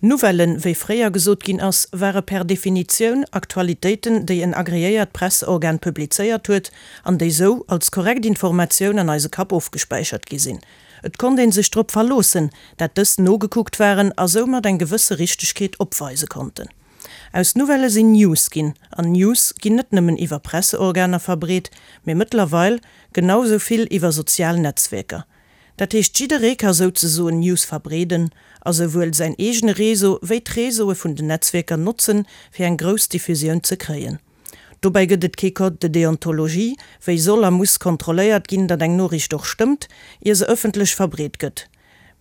Nouvellen, wéi fréier gesot ginn ass, ware per Definitioun Aktualitéiten, déi en agreéiert Presseorgan publizéiert huet an déi sou als korrekt Informatioun an eise Kapp ofgespäichert gi sinn. Et konnt ee sech drop verloossen, dat dës nogekuckt waren a soumat eng gewësse Richtegkeet opweise konnten. Aus Nouvellë sinn News ginn, an News ginn net nëmmen iwwer Presseorganer verbreet, mee mëttlerweil genau sou vill iwwer sozial Netzwierker. Dat heescht jidderee ka souzesoen News verbreeden a souwuel säin eegene Réseau wéi d'Réseaue vun den Netzwierker notzen, fir eng grouss Diffusioun ze kréien. Dobäi gëtt et kee Code de déontologie, wéi soll a muss kontrolléiert ginn, datt eng Noriicht och stëmmt, ier se ëffentlech verbreet gëtt.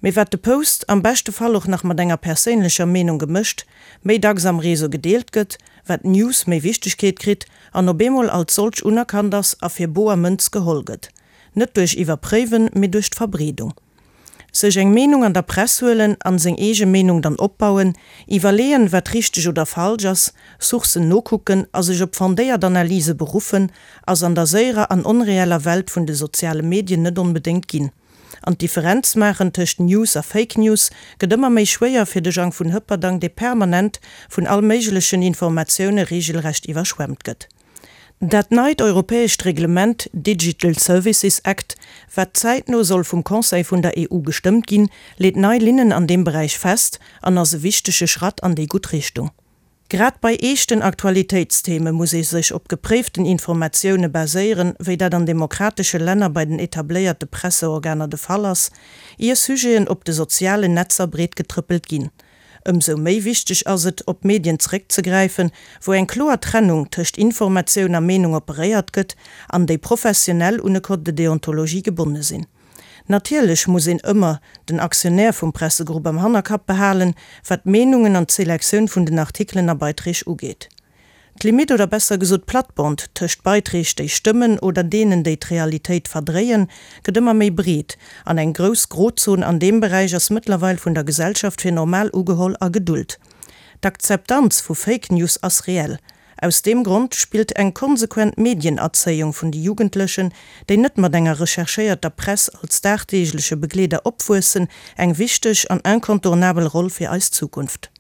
Mee wat de Post, am beschte Fall och nach mat enger perséinlecher Meenung gemëscht, méi dacks am Réseau gedeelt gëtt, wat d'News méi Wichtegkeet kritt an op eemol als solch unerkannt ass a fir boer Mënz geholl gëtt. Net duerch Iwwerpréiwen, mee duerch d'Verbreedung. Sech eng Meenung an der Press huelen an seng eege Meenung dann opbauen, iwwerleeën, wat richteg oder falsch ass, Sourcen nokucken a sech op fondéiert Analyse beruffen, ass an der séierer an onreeller Welt vun de soziale Medien net onbedéngt ginn. An d'Differenz maachen tëscht News a Fake News gëtt ëmmer méi schwéier fir de Jang vun Hëpperdang, dee permanent vun all méiglechen Informatioune reegelrecht iwwerschwemmt gëtt. Dat neit europäescht Reglement Digital Services Act, wat zäitno soll vum Conseil vun der EU gestëmmt ginn, leet nei Linnen an deem Beräich fest an ass e wichtege Schratt an déi gutt Richtung. Grad bei eeschten Aktualitéitstheme muss ee sech op gepréiften Informatioune baséieren, wéi dat an demokratesche Länner bei den etabléierte Presseorganer de Fall ass, ier Sujeten op de sozialen Netzer breetgetrëppelt ginn. Ëmsou méi wichteg ass et, op Medien zeréckzegräifen, wou eng kloer Trennung tëscht Informatioun a Meenung operéiert gëtt an déi professionell un e Code de déontologie gebonne sinn. Natierlech muss een ëmmer den Aktionär vum Pressegrupp am Hannerkapp behalen, wat d'Meenungen an d'Selektioun vun den Artikelen a Beiträg ugeet. D'Limitt, oder besser gesot d'Plattbond tëscht Beiträg déi stëmmen oder deenen déi d'Realitéit verdréien, gëtt ëmmer méi breet an eng grouss Grozon an deem Beräich ass mëttlerweil vun der Gesellschaft fir normal ugeholl a gedult. D'Akzeptanz vu Fake News ass reell. Aus deem Grond spillt eng konsequent Medienerzéiung vun de Jugendlechen, déi net mat enger recherchéierter Press als dagdeegleche Begleeder opwuessen, eng wichteg an incontournabel Roll fir eis Zukunft.